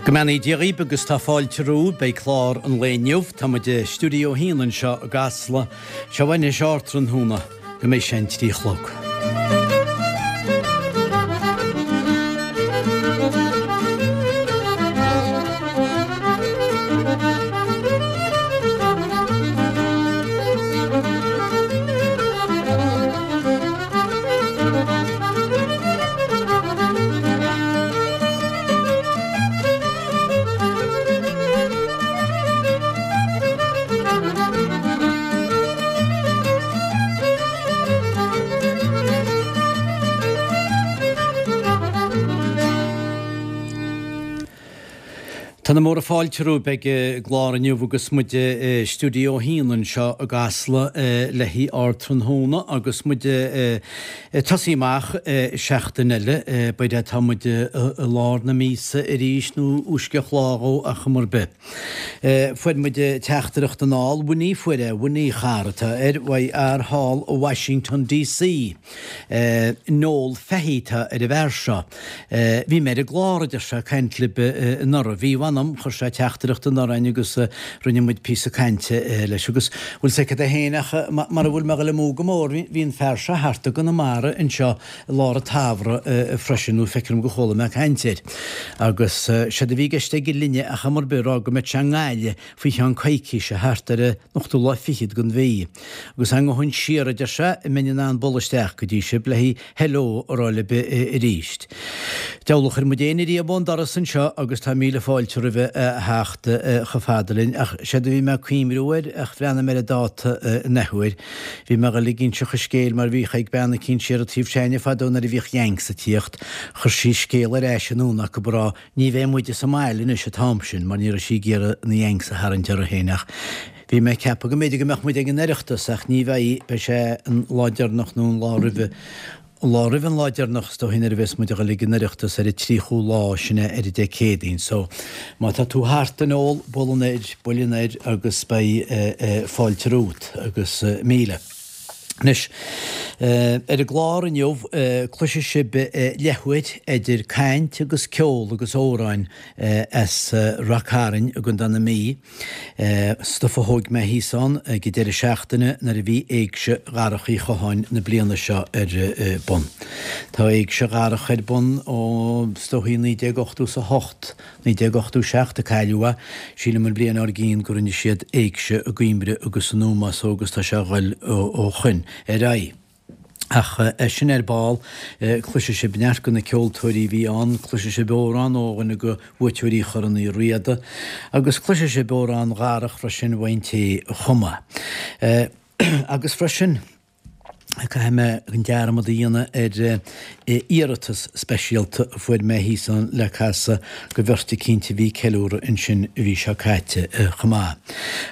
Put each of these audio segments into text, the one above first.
Go mbeannaí Dia dhaoib agus tá fáilte romhaibh. Beidh clár an lae inniu. Tá muid i Stiúideo 1 anseo i gCasla. Seo anois ardtráthnóna go mbeidh sé an 3 a chlog. Tá na móra fáilte romhaibh ag an gclár inniu agus muid i Stiúideo 1 anseo i gCasla le haghaidh ardtráthnóna agus muid Ag tosaí amach seachtain eile, b'fhéidir tá muid i lár na míosa arís nó uaisceach lá dhó ach cuma ar bith. Fuair muid teachtaireacht anall, Winnie fuair é, Winnie chara atá air, uaidh fhear thall i Washington DC. Noel Fahey atá ar an bhfear seo. Bhí mé ar an gclár, a deir sé, ag caint libh anuraidh. Bhí, mh'anam, chuir sé teachtaireacht anuraidh againn agus rinne muid píosa cainte leis. Agus bhfuil 's agat é féin ach mara bhfuil mé ag dul amú go mór, bhí an fear seo thart i gConamara anseo i lár an tsamhraidh freisin, nó feictear dom go chuala mé caint air. Agus séard a bhí i gceist aige linne ach am ar bith, a rá go mbeadh sé i nGaillimh faoi cheann coicíse, thart ar an ochtú lá fichead den mhí. Agus dá ngabhfainn siar, a deir sé, an mbeinn in ann bualadh isteach go dtí sibh le haghaidh hello a rá libh arís. Deabhal a chuir muid éinne riamh ón doras anseo agus tá míle fáilte roimhe a theacht chomh fada linn. Ach séard a bhí mé ag cuimhniú air, ach bhreathnaigh mé ar an dáta an athuair, bhí mé ag dul ag inseacht an scéil mar bhíodh ag bean eicínt siar an taobh s'againne fadó nuair a bhíodh Yanks ag tíocht, chuir sí scéal ar ais anonn acu ag rá Ní bheidh muide sa mbaile anois an t-am sin mar ní raibh sí ag iarraidh na Yanks a tharraingt uirthi féin ach bhí mé ag ceapadh go mb'fhéidir go mbeadh muid ag an Oireachtas ach ní bheidh, beidh sé an lá deireanach nó an lá roimhe, an lá roimhe an lá deireanach is dóigh nuair a bheas muid ag dul ag an Oireachtas ar an tríochú lá sin é ar an Dé Céadaoin so má tá tú thart a Noel, buail anoir, buail anoir agus beidh fáilte romhat agus míle. Anois, ar an gclár inniu, cloisfidh sibh leathuair idir caint agus ceol agus amhráin as Rath Cairn i gContae na Mí, stuif a thóig mé thíos ann ag an deireadh seachtaine nuair a bhí Éigse Dharach Uí Chatháin na bliana seo ar bun. Tá Éigse Dharach ar bun ó, is dóichí, 1988. 1987 a cailleadh é. Sílim an bhliain dár gcionn go rinne siad éigse i gCoimbri agus in Ómaigh so agus tá sé a ghoil ó shoin ar aghaidh. Ach é sin ar ball, cloisfidh sibh neart de na ceoltóirí a bhí ann, cloisfidh sibh amhrán ó dhuine de bhuaiteoirí Chorn Uí Riada agus cloisfidh sibh amhrán Dharach freisin uaidh an té a chum é. Agus freisin. Caithfidh mé an dearmad a dhéanamh ar iarratas speisialta a fuair mé thíos ann le casadh go bheirt eicínt a bhí ag ceiliúradh ansin an mhí seo caite chomh maith.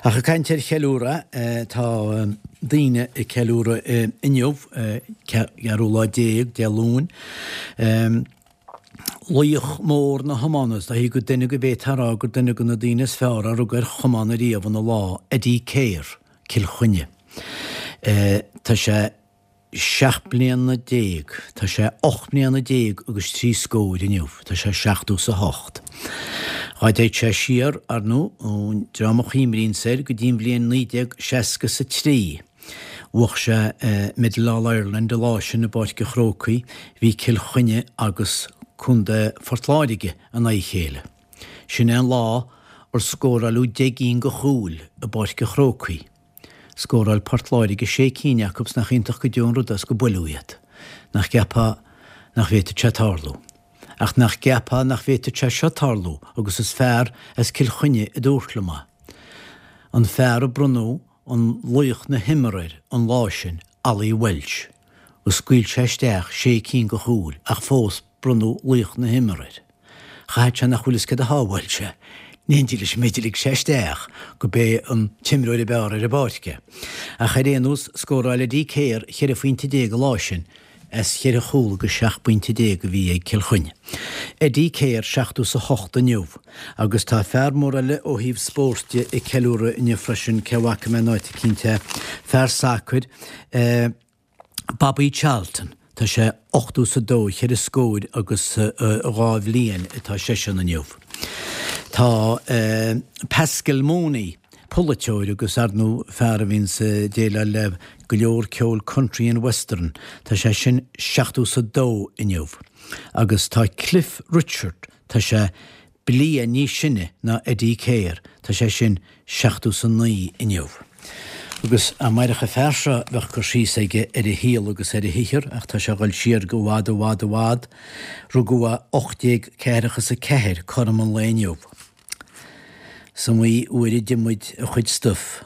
Ach ag caint ar cheiliúradh, tá daoine ag ceiliúradh inniu, ceathrú lá déag, Dé Luain. Laoch mór na hiomána, is dóichí gur duine go bhféadfá a rá gur duine de na daoine is fearr a rug ar chamán ariamh ina lá, Eddie Keher. Cill Chainnigh. Tá sé 17 mbliana, tá sé 18 mbliana agus trí scóir inniu, tá sé seachtó 's a hocht. Dhá dtéid sé siar, ar ndóigh, ón dream a chuimríonns air go dtí an bhliain 1963, bhuach sé Medal All Ireland an lá sin i bPáirc an Chrócaigh, bhí Cill Chainnigh agus Contae Phort Láirge in aghaidh a chéile. Sin é an lá ar scóráileadh 10 gcinn de chúil i bPáirc an Chrócaigh. Scóráil Port Láirge sé cinn acu 's nach iontach go deo an rud é 's go buaileadh iad. Nach gceapfá nach bhféadfadh sé tarlú. Ach nach gceapfá nach bhféadfadh sé seo tarlú agus is fear as Cill Chainnigh a dúirt liom é. An fear a bronnadh an laoch na himeartha air an lá sin, Ollie Walsh, agus scaoil sé isteach sé cinn de chúil ach fós bronnadh laoch na himeartha air. Chaithfeadh sé nach bhfuil fhios céard a shábháil sé. In éindí leis an méid a lig sé isteach go b'é an t-imreoir ab fhearr ar an bpáirc é. Ach ar aon nós, scóráil Eddie Keher 14 phointe an lá sin as cheithre chúl agus 17 bpointe a bhí ag Cill Chainnigh. Eddie Keher 78 inniu agus tá fear mór eile ó thaobh spóirt de ag ceiliúradh inniu freisin, cé a bhfaca mé in áit eicínt é, fear sacair, Bobby Charlton, tá sé 82, cheithre scóir agus dhá bhliain atá seisean inniu. Tá Pascal Mooney, polaiteoir agus ar ndóigh fear a bhíonns ag déileáil le go leor ceol country and western, tá sé sin 70 's a dó inniu. Agus tá Cliff Richard, tá sé bliain níos sine ná Eddie Keher, tá sé sin 70 's a 9 inniu. Agus dá mairfeadh an fear seo bheadh cur síos aige ar a shaol agus ar a shaothar ach tá sé ag dul siar go i bhfad i bhfad i bhfad. Rugadh é 1844, cothrom an lae inniu. Is iomaí uair a d'ith muid a chuid stuif.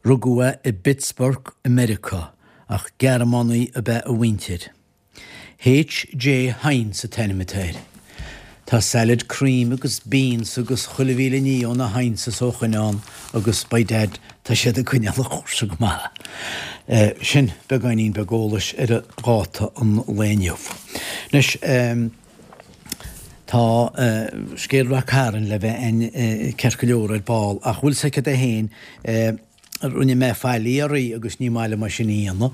Rugadh é i bPittsburgh i Meiriceá ach Gearmánaigh ab ea a mhuintir. H.J. Heinz an t-ainm atá air. Tá salad cream agus beans agus chuile mhíle ní ó na Heinzes ó shoin ann agus by dad tá siad ag coinneáil an chúrsa go maith. Sin beagáinín beag eolais ar dháta an lae inniu. Anois tá scéal Rath Cairn le bheith a'inn ceart go leor ar ball ach bhfuil 's agat é féin, Rinne mé faillí oraibh agus ní maith liom é sin a dhéanamh,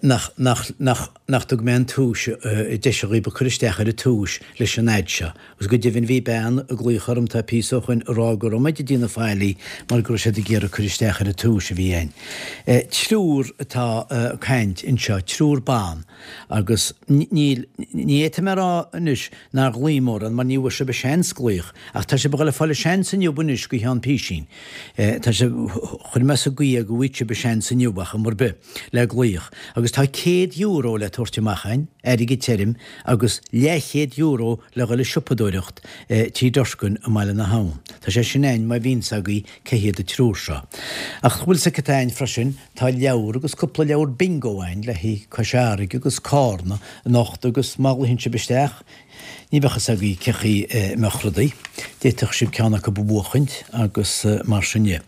nach, nach, nach, nach dtug mé an tomhais, deis dhaoib a cur isteach ar an tomhais leis an fhad seo. Agus go deimhin bhí bean ag glaoch orm tá píosa ó shoin ag rá go raibh mé ag déanamh faillí mar go raibh siad ag iarraidh cur isteach ar an tomhais a bhí a'inn. Triúr atá ag caint anseo, triúr ban, agus níl, ní fhéadfaidh mé a rá anois nár ghlaoigh mórán mar ní bhfuair sibh seans glaoch, ach tá sibh ag dul a fáil seans inniu anois go cheann písín. Tá sé, chuir mé sa gcaoi é go bhfaighidh sibh seans inniu ar chuma ar bith, le glaoch. Agus tá €100 le tabhairt amach a'inn, airgead tirim, agus leathchéad euro le dhul ag siopadóireacht Tí Durkin i mBaile na hAbhann. Tá sé sin a'inn má bhíonn 's agaibh cé hiad an triúr seo. Ach bhfuil 's agat cad tá a'inn freisin, tá leabhar agus cúpla leabhar bingo a'inn le haghaidh Cois Fharraige agus Cárna anocht agus má ghlaochann sibh isteach, Ní bheadh fhios agaibh cé chaoi a mbeadh rudaí. D'fhéadfadh sibh ceann acu a bhuachaint agus mar sin de.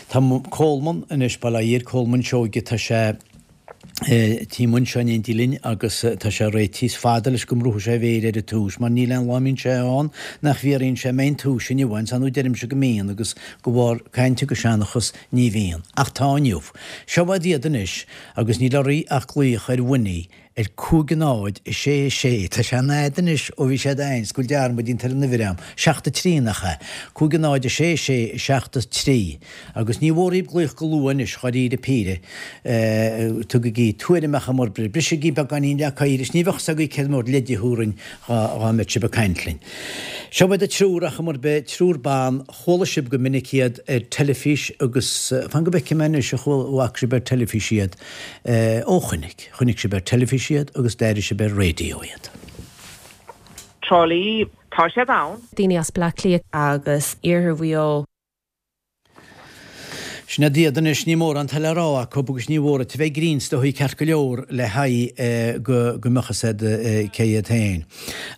Tá Colman anois, bail ó Dhia ar Colman Seoige, tá sé taobh amuigh anseo in éindí linn agus tá sé réitithe. Is fada leis go mbrúfaidh sé a mhéir ar an tomhas mar níl aon lá a mbíonn sé ann nach bhfiafraíonn sé an mbeidh an tomhas inniu ann. Ar ndóigh deirimse go mbíonn agus de bharr caint agus seanchas ní bhíonn. Ach tá inniu. Seo iad iad anois agus níl oraibh ach glaoch ar Winnie Ar 5 0 6 6, tá sé an-fhada anois ó bhí siad a'inn, 's go bhfuil dearmad déanta ar an uimhir a'm, 7 3 nach ea? 5 0 6 6 7 3. Agus ní mhór dhaoib glaoch go luath anois, dháiríre píre. Tugaigí tuairim ar chuma ar bith, brisigí beagáinín leac oighir is ní bheadh 's agaibh céard mór leid a thabharfainn dhá mbeadh sibh ag caint linn. Seo iad an triúr ar chuma ar bith, triúr ban, Chuala sibh go minic iad ar teilifís agus, fan go bhfeicfidh mé anois, an bhfaca sibh ar teilifís iad? Ó chonaic. Chonaic sibh ar teilifís iad agus d'airigh sibh ar raidió iad. Trá Lí, tá siad ann. Daoine as Bleá Cliath. Agus Iarthar Mhaigh Eo. Sin iad iad anois, ní mórán atá le rá acu agus ní mhór duit a bheith grinn is dóigh ceart go leor le haghaidh go go mbeadh fhios a'd cé iad féin.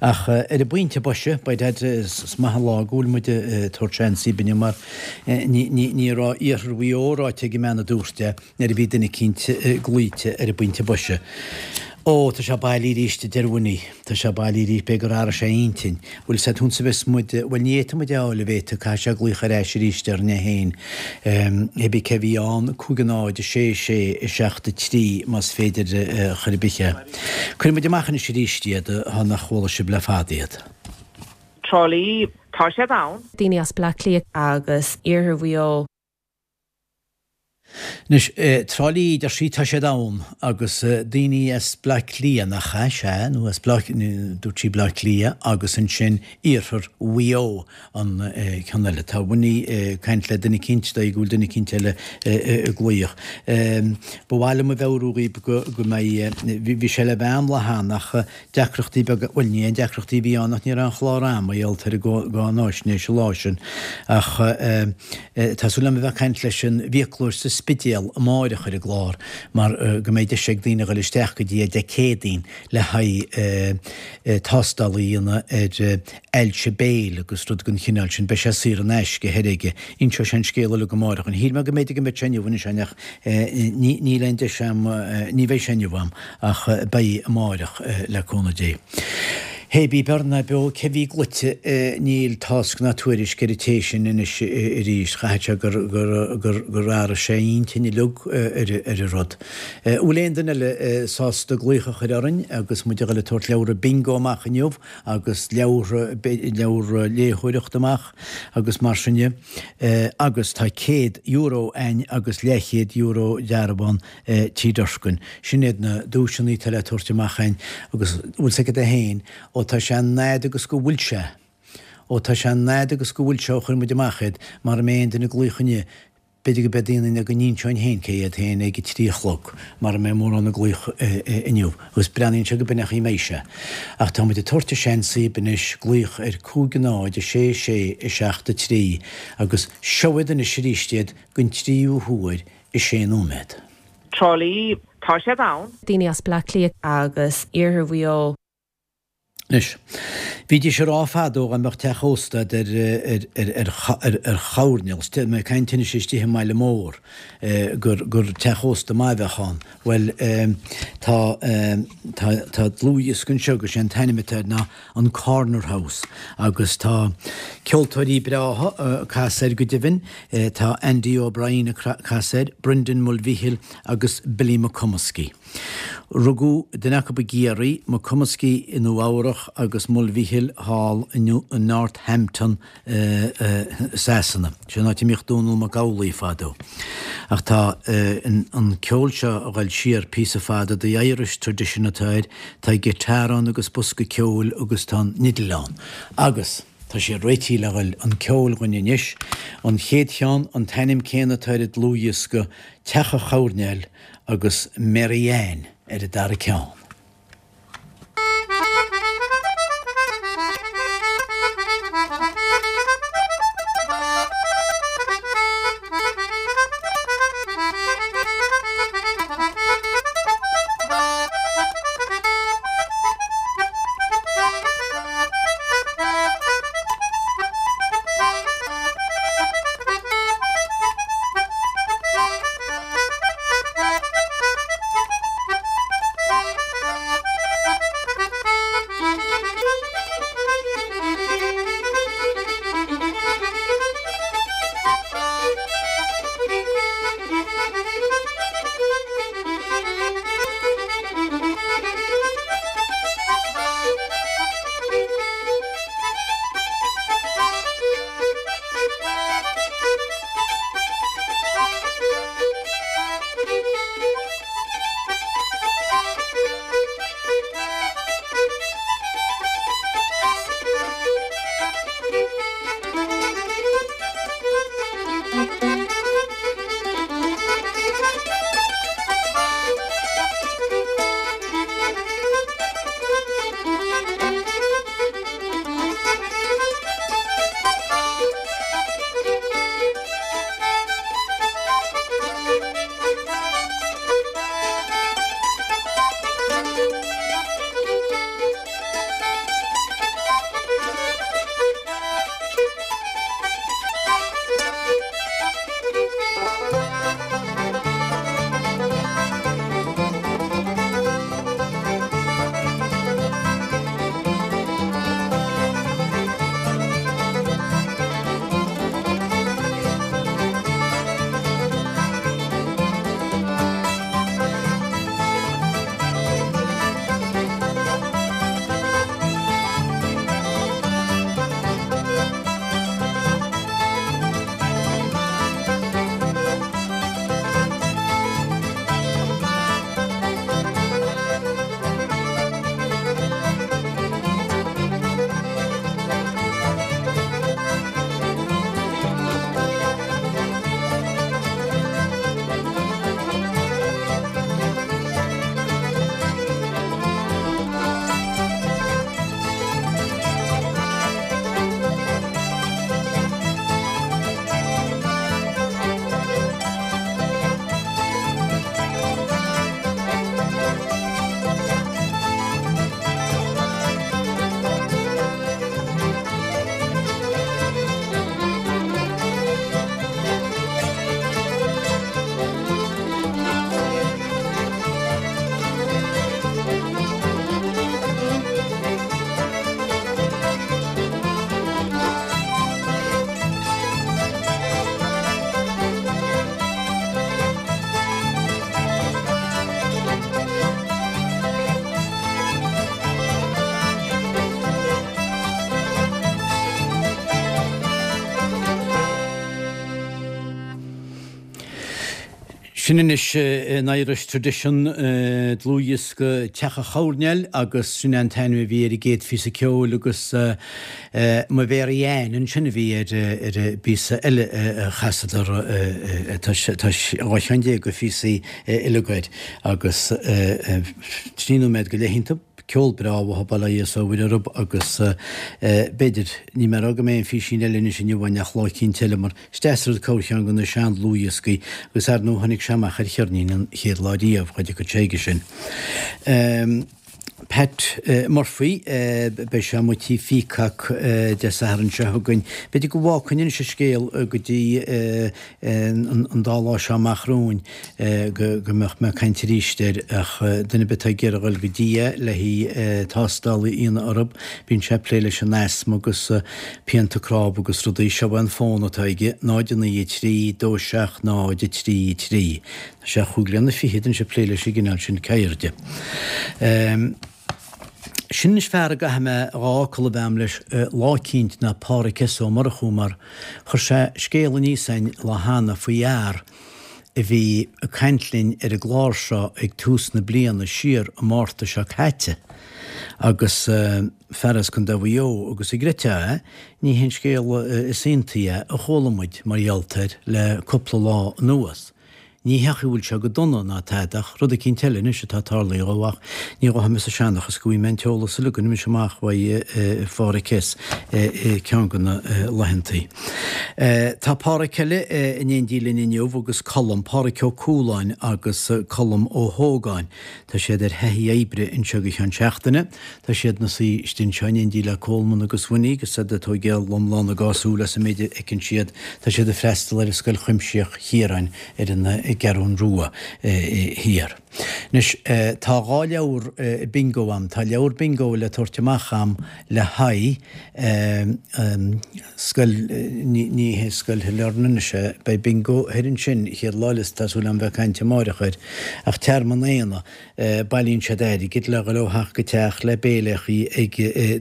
Ach ar an bpointe boise, by dad, is maith an lá go bhfuil muid ag tabhairt seans daoib inniu mar ní raibh Iarthar Mhaigh Eo ráite ag an mbean a dúirt é nuair a bhí duine eicínt glaoite ar an bpointe boise. Ó, tá sé bailí arís, a deir Winnie. Tá sé bailí arís, b'fhéidir gur athraigh sé a intinn. Bhfuil 's a'd thusa bheas muid, bhuel ní fhéadfaidh muid é a fháil a bhéite, caithfidh sé glaoch ar ais arís orainn é féin. Hé bith cé bhí ann, 5 0 6 6 7 3 más féidir chor ar bith é. Cuirfidh muid amach anois arís iad, thá nach chuala sibh le fada iad. Trá Lí, tá siad ann. Daoine as Bleá Cliath. Agus Iarthar Mhaigh Eo. Anois, Trá Lí, deir sí, tá siad ann, agus daoine as Bleá Cliath, nach ea? Sea, nó as Bleá, dúirt sí Bleá Cliath, agus ansin Iarthar Mhaigh Eo an ceann eile. Tá Winnie ag caint le duine eicínt, dóigh go bhfuil duine eicínt eile ag glaoch. Ba mhaith liom a mheabhrú dhaoib go, go mbeidh, bhí sé le bheith a'm lá cheana ach Deacrachtaí beaga, bhuel ní aon deacrachtaí a bhí ann ach ní raibh aon chlár a'm mar gheall ar an gcáináisnéis an lá sin ach tá súil agam a bheith ag caint leis an bhfiaclóir sa Spidéal amáireach ar an gclár mar go mbeidh deis ag daoine a dhul isteach go dtí é Dé Céadaoin le haghaidh tástáil a dhéanamh ar ailse béil agus rud den chineál sin. Beidh sé saor in aisce thoir aige. Inseoidh sé an scéal uilig amáireach. Shíl mé go mb'fhéidir go mbeadh sé inniu anois ach níl aon deis a'm, ní bheidh sé inniu a'm ach beidh amáireach le cúnamh Dé. Hé bí beo ná beo cé bhí gluaite níl tásc ná tuairisc ar an té sin anois arís. Chaithfeadh sé gur gur gur athraigh sé a intinn uilig ar ar an rud. Bhfuil aon duine eile sásta glaoch a chur orainn agus muid a dhul ag tabhairt leabhra bingo amach inniu agus leabhartha leabhra léitheoireachta amach agus mar sin de agus tá €100 a'ainn agus leathchéad euro dearbhán Tí Durkan. Sin iad na duaiseanna atá le tabhairt amach a'ainn agus bhfuil 's agat é féin, ó tá sé an fhad agus go bhfuil sé, ó tá sé an fhad agus go bhfuil sé ó chuir muid amach iad, mara mbeidh aon duine ag glaoch inniu, b'fhéidir go beidh daoine go n-inseoinn féin cé iad féin ag a 3 a chlog, mara mbeidh mórán ag glaoch inniu. Agus breathnaíonn sé go b'in an chaoi a mbeidh sé. Ach tá muid ag tabhairt an seans daoib anois glaoch ar 5 0 6 6 7 3 agus seo iad anois arís iad don tríú huair i sé nóiméad. Trá Lí, tá siad ann. Daoine as Bleá Cliath. Agus iarthar Mhaigh Eo. Anois, bhídís ag rá fadó dá mbeadh teach ósta a'd ar, ar, ar, ar, ar choirnéal, tá mé ag caint anois istigh i mbaile mór, gur, gur teach ósta maith a bheadh ann. Bhuel, tá, tá, tá dlúthdhiosca anseo agus sé an t-ainm atá air ná an Corner House agus tá ceoltóirí breátha ag casadh air go deimhin, tá Andy O'Brien ag casadh air, Brendan Mulvihill agus Billy McComiskey. Rugadh duine acu i gCiarraí, McComiskey i Nua Eabhrach agus Mulvihill thall i Northampton Sasana. Sin an áit a mbíodh Dónall Mac Amhlaigh fadó. Ach tá an ceol seo a ghoil siar píosa fada, The Irish Tradition atá air, tá guitar ann agus bosca ceoil agus tá an fhidil ann. Agus tá sé réitithe le ghoil chun ceoil dhuinn anois. An chéad cheann, an t-ainm céanna atá ar an dlúthdhiosca, Teach an Choirnéil agus Mary Ann ar an dara ceann. Sin anois an Irish Tradition, dlúthdhiosca Teach an Choirnéil agus sin é an t-ainm a bhí ar an gcéad phíosa ceoil agus Mo Mhary Ann ansin a bhí ar an bpíosa eile a chasadar. Tá 12 cheann de phíosaí uilig air agus 3 nóiméad go leith iontu. Ceol breá uathu, bail ó Dhia is ó Mhuire orthu agus b'fhéidir, níl mé ag rá go mbeidh an físín eile anois inniu againn ach lá eicínt eile mar is deas an rud corrcheann de na sean-dlúthdhioscaí agus ar ndóigh tháinig sé amach ar cheirnín an chéad lá riamh, cha dtiocfadh sé chuige sin. Pat Murphy, beidh sé amuigh tí Pheacock Dé Sathairn seo chugainn. B'fhéidir go bhfágfainn anois an scéal go dtí an dá lá seo amach romhainn go mbeadh mé ag caint arís air ach duine ar bith atá ag iarraidh a dhul go dtí é le haghaidh tástáil a dhéanamh orthu, bíonn sé ag plé leis an asma agus pianta cnámh agus rudaí. Seo é an fón atá aige, 0 9 3 2 7 0 3 3. Tá sé chúig bliana fichead anois ag plé leis an gcineál sin ceirde. Sin anois fear a gcaithfidh mé dhá fhocal a bheith a'm leis lá eicínt ná Pádhraic S. Ó Murchú mar chuir sé scéal aníos a'inn lá cheana faoi fhear a bhí ag caint linn ar an gclár seo ag tús na bliana siar i Márta seo caite agus fear as Contae Mhaigh Eo agus an gcreidfeá é, ní hé an scéal is iontaí é a chuala muid mar gheall air le cúpla lá anuas. Ní hé go bhfuil sé go dona ná tada ach rud eicínt eile anois atá tarlaithe dhó ach ní ghabhfaidh mé sa seanchas go bhfaighidh mé an t-eolas uilig anois amach uaidh Phádhraic S. i gceann de na laethantaí. Tá Pádhraic eile in éindí linn inniu agus Colm, Pádhraic Ó Cualáin agus Colm Ó hÓgáin. Tá siad ar thaithí oibre anseo go ceann seachtaine. Tá siad ina suí istigh anseo in éindí le Colman agus Winnie agus iad ag tóigeáil lomlán a dhá súil as an méid a fheiceann siad. Tá siad ag freastal ar Scoil Chuimsitheach Chiaráin ar an gCeathrún Rua thiar. Anois, tá dhá leabhar bingo a'm. Tá leabhar bingo le tabhairt amach a'm le haghaidh scoil, ní hé Scoil Shailearna anois é, beidh bingo thoir ansin chéad lá eile is tá súil a'm bheith ag caint amáireach air, ach Tearmann Éanna. Bailíonn siad airgead le dhul ó theach go teach le béiléachaí ag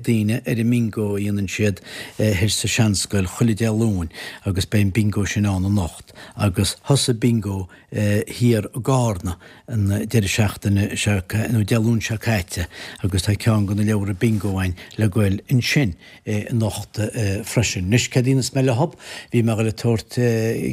daoine ar an mbingo a dhéanann siad thoir sa seanscoil chuile Dé Luain agus beidh an bingo sin ann anocht agus thosaigh bingo thiar i gCarna an deireadh seachtaine seo nó Dé Luain seo caite agus tá ceann de na leabhra bingo againn le goil ansin. anocht freisin. Anois, céard a dhéanfas mé leothub? Bhí mé ag dul ag tabhairt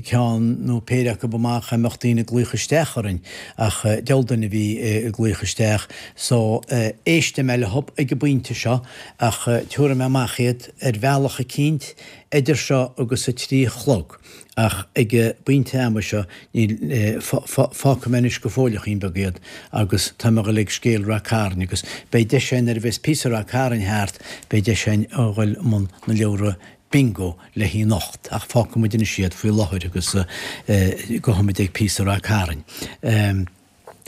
ceann nó péire acu amach dá mbeadh daoine ag glaoch isteach orainn, ach diabhal duine a bhí ag glaoch isteach, so éistfidh mé leothub ag an bpointe seo, ach tabharfaidh mé amach iad ar bhealach eicínt idir seo agus a trí a chlog. Ach ag an bpointe ama seo, níl, fágfaidh mé anois go fóilleachín beag iad agus tá mé ag dul ag scéal Rath Cairn agus beidh deis againn nuair a bheas píosa Rath Cairn thart, beidh deis againn a dhul i mbun na leabhra bingo le haghaidh anocht ach fágfaidh muid anois iad faoi láthair agus gabhfaidh muid ag píosa Rath Cairn.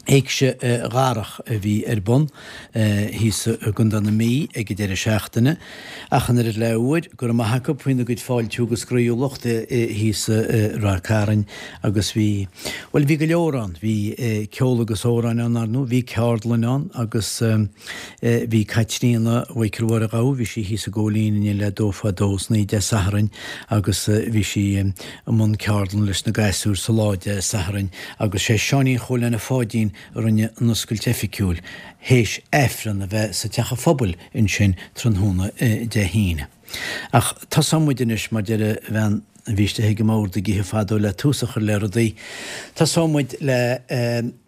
Éigse Dharach a bhí ar bun thíos i gContae na Mí ag an deireadh seachtaine. Ach an oiread le huair, go raibh maith acu faoina gcuid fáiltiú agus groíúlacht thíos i Ráth Cairn agus bhí, bhuel bhí go leor ann. Bhí ceol agus amhráin ann, ar ndóigh, bhí ceardlann ann agus bhí Caitríona Mhichael Mháire Ghabha, bhí sí thíos i gCóilín inné le dó fá dó san oíche Dé Sathairn agus bhí sí i mbun ceardlann leis na gasúir sa lá Dé Sathairn agus sé Seáinín Chóil Anna Pháidín a rinne an oscailt oifigiúil, théis Aifreann a bheith sa Teach an Phobail ansin tráthnóna Dé hAoine. Ach tosóidh muid anois, mar deir an bhean a bhí istigh ag an mbord ag ithe fadó le tús a chur le rudaí, tosóidh muid le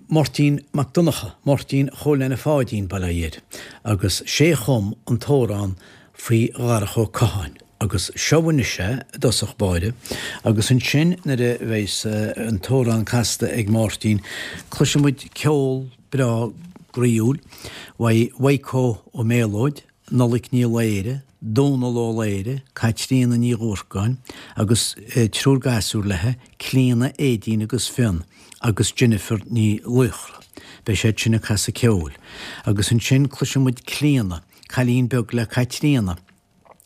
Máirtín Mac Donncha, Máirtín Chóil Anna Pháidín, bail ó Dhia air, agus sé a chum an t-amhrán faoi Dharach Ó Catháin agus seo anois é i dtosach báire agus ansin nuair a bheas an t-amhrán casta ag Máirtín cloisfidh muid ceol breá groíúil uaidh Mhaidhc Ó Méalóid, Nollaig Ní Laoire, Dónal Ó Laoire, Caitríona Ní Dhúrcáin agus triúr gasúr léi, Clíona, Aedín agus Fionn agus Jennifer Ní Laochra. Beidh siad sin ag casadh ceoil. Agus ansin cloisfidh muid Clíona, cailín beag le Caitríona.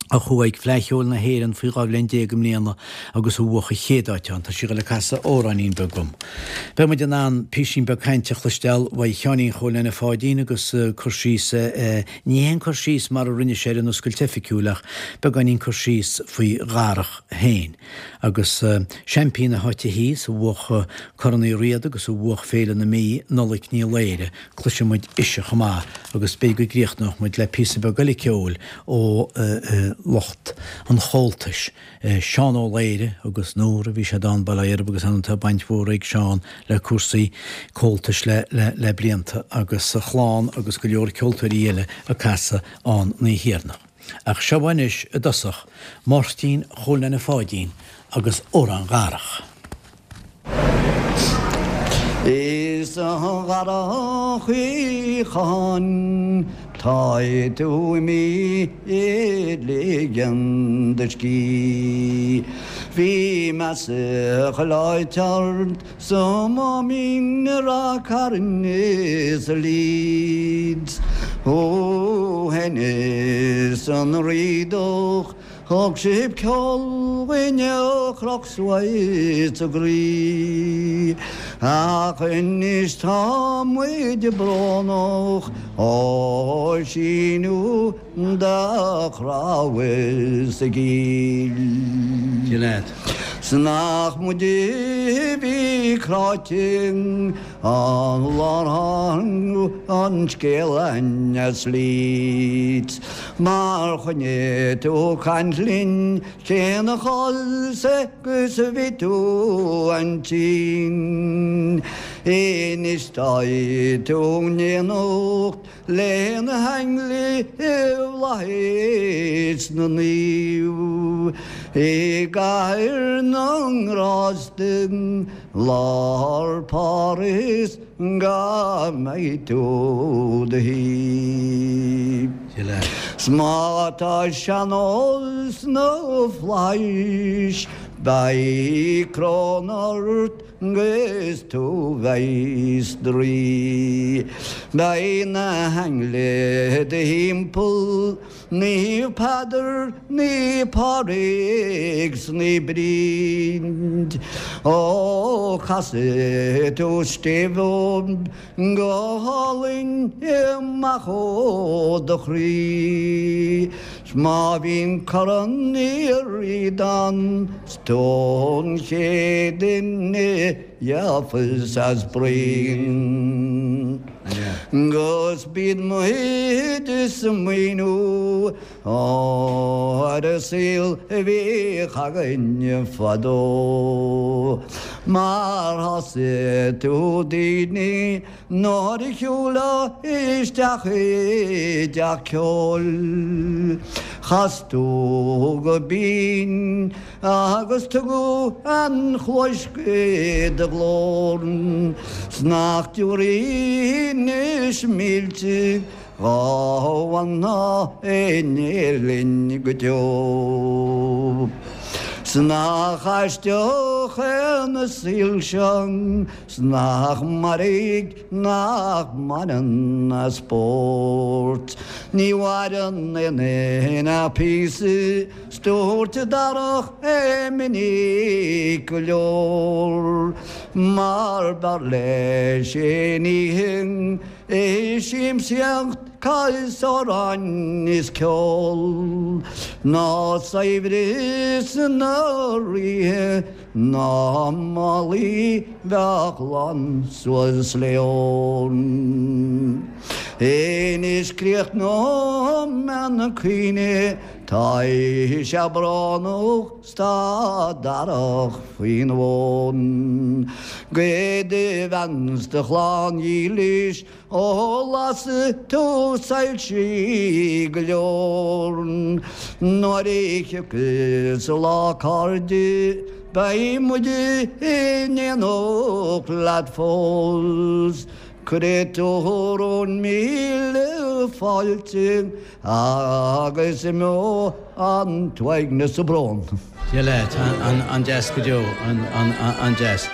A chuaigh ag Fleadh Cheoil na hÉireann faoi 12 bhliain i mbliana agus a bhuaigh an chéad áit ann. Tá sí ag dul ag casadh amhráinín beag dom. Beidh muid in ann píosín beag cainte a chloisteáil uaidh Sheáinín Chóil Neaine Pháidín agus cur síos, ní haon cur síos mar a rinne sé ar an oscailt oifigiúil ach beagáinín cur síos faoi Dharach féin. Agus seaimpín na háite thíos, a bhuaigh Corn Uí Riada agus a bhuaigh Féile na Mí, Nollaig Ní Laoire, cloisfidh muid ise chomh maith agus b'fhéidir go gcríochnóidh muid le píosa beag eile ceoil ó lucht an Chomhaltais, Seán Ó Laoire agus nuair a bhí sé ann Baile Átha Erb agus ann tá baint mhór ag Seán le cúrsaí Comhaltais le le blianta agus a chlann agus go leor ceoltóirí eile ag casadh ann an oíche dheireanach. Ach seo anois i dtosach Máirtín Chóil Neaine Pháidín agus Amhrán Dharach. Is a Dharach Uí Chatháin tá tú imithe ag ligean do scíth. Bhí meas chuile áit ort sa Máimín i Ráth Cairn is i Leeds. Thú fhéin is an Riadach Thug sibh ceol dhuinn a chroch suas ár gcroí, ach anois tá muid brónach ó síneadh do chnámh sa gcill. 'S nach muid a bhí cráite An lá ar tháinig an scéal as Leeds Mar choinnigh tú caint linn cén chás agus bhí tú an-tinn Anois tá tú in éineacht Le na hainglí i bhflaithis na naomh i gcathair na ngrást i lár Pháras go mbeidh tú do shuí. 'S má tá sean-ól sna flaithis beidh coróin ort 'gus tú bheith 's do rí. Beidh na hainglí i do thimpeall, Naomh Peadar, Naomh Pádraig 's Naomh Bríd. Ó casfaidh tú stéibh dóibh go hálainn amach ó do chroí. 'S má bhíonn Corn Uí Riada ann 's tú an chéad duine gheofas as braon. 'Gus bíonn muid ag smaoineamh ar an saol a bhíodh againn fadó. Mar shásaigh tú daoine Nuair a shiúlfá isteach i dteach ceoil, chas tú go binn agus tugadh an chluais do ghlór, 's nach dtiúrfaí anois mílte dhá bhfanfá in Éirinn go deo. 'S nach aisteach é an saol seo 's nach mairg nach mbaineann a spórt. Ní mhaireann aon duine ach píosa 's dúirt Darach é minic go leor mar b'fhearr leis aon oíche ag siamsaíocht 's amhráin is ceol ná saibhreas na ríthe Ná málaí bheadh lán suas le ór. Anois críochnóidh mé an caoineadh, tá sé brónach 's tá Darach faoin bhfón. Go do bhean 's do chlann dhílis Ó las tú soilsí go leor nuair a thiocfas an lá a chairde beidh muid in éineacht leat fós. Cuirfidh tú romhainn míle fáilte agus imeoidh an t-uaigneas 's an brón. Dia leat, an-deas go deo, an-deas.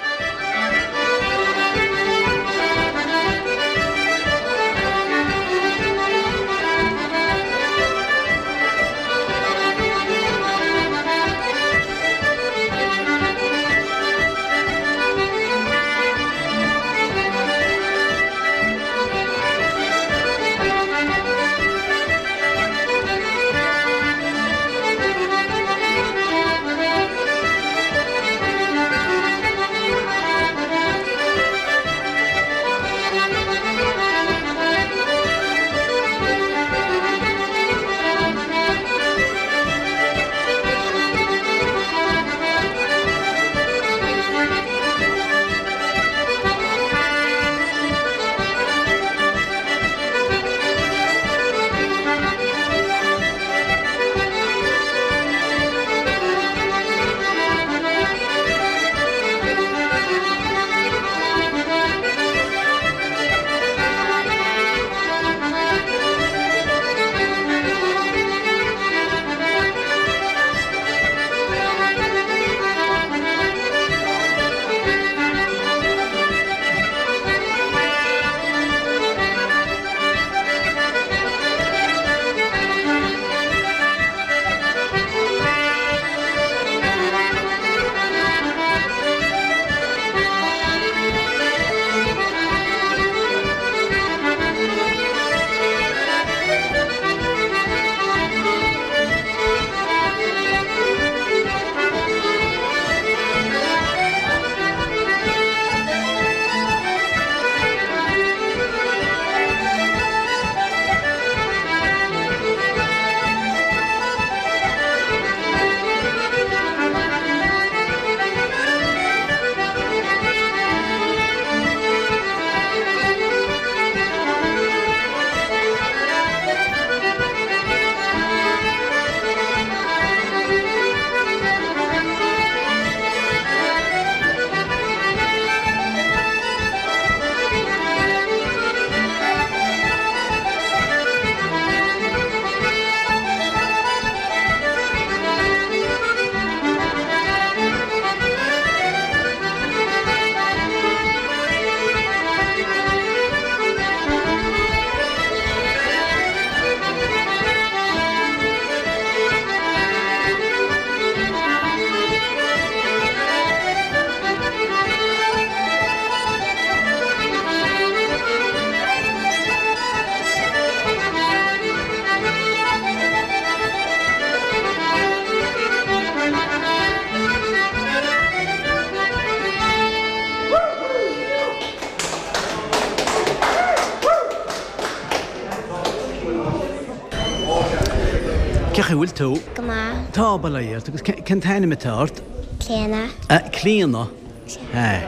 Cén chaoi a bhfuil tú? Go maith. Tá, bail ó Dhia ort. Agus cén t-ainm atá ort? Clíona. Clíona? Sea.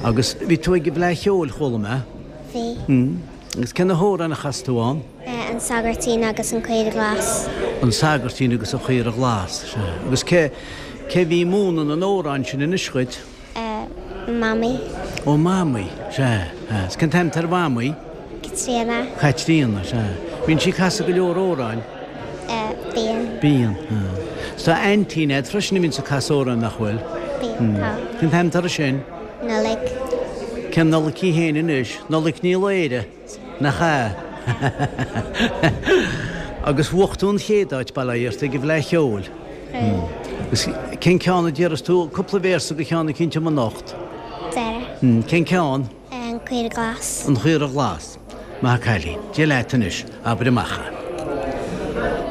Agus bhí tú ag an bhFleadh Cheoil, chuala mé. Bhí. Agus cé na hamhráin a chas tú ann? An Sagairtín agus an Caora Glas. An Sagairtín agus an Chaora Ghlas, sea. Agus cé, cé bhí ag múineadh na n-amhrán sin anois dhuit? Mamaí. Ó, Mamaí, sea. Agus cén t-ainm atá ar Mhamaí? Caitríona. Caitríona, sea. Bíonn sí ag casadh go leor amhráin? Bíonn. Bíonn, sea. Is tá aintín agat freisin a bhíonns ag casadh amhráin, nach bhfuil? Bíonn, tá. Cén t-ainm atá uirthi sin? Nollaig. Cén Nollaig í féin anois? Nollaig Ní Laoire, nach ea? Agus bhuaigh tú an chéad áit, bail ó Dhia ort, ag an bhFleadh Cheoil. Agus cén ceann a déarfas tú cúpla véarsa de cheann eicínt dom anocht? Dara. Cén ceann? An Chaora Ghlas. An Chaora Ghlas. Maith an cailín. Dia leat anois. Abair amach é.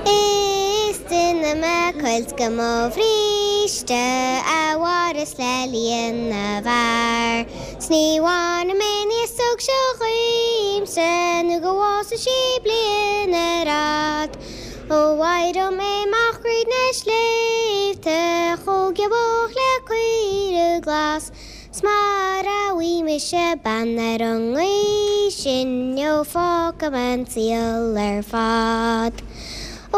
Is duine mé cuilt go mo bhríste a mhaireas le líon na bhfear 's ní bhainfidh mé an iasóg seo dhíomsa nó go bhfásfaidh sí bliain ar fhad. Ó éireoidh mé amach thríd na sléibhte chomh giobach le caora glas. 'S mara bhfaighidh mise bean ar an ngaoth sin ó fágfaidh mé an saol ar fad. Ó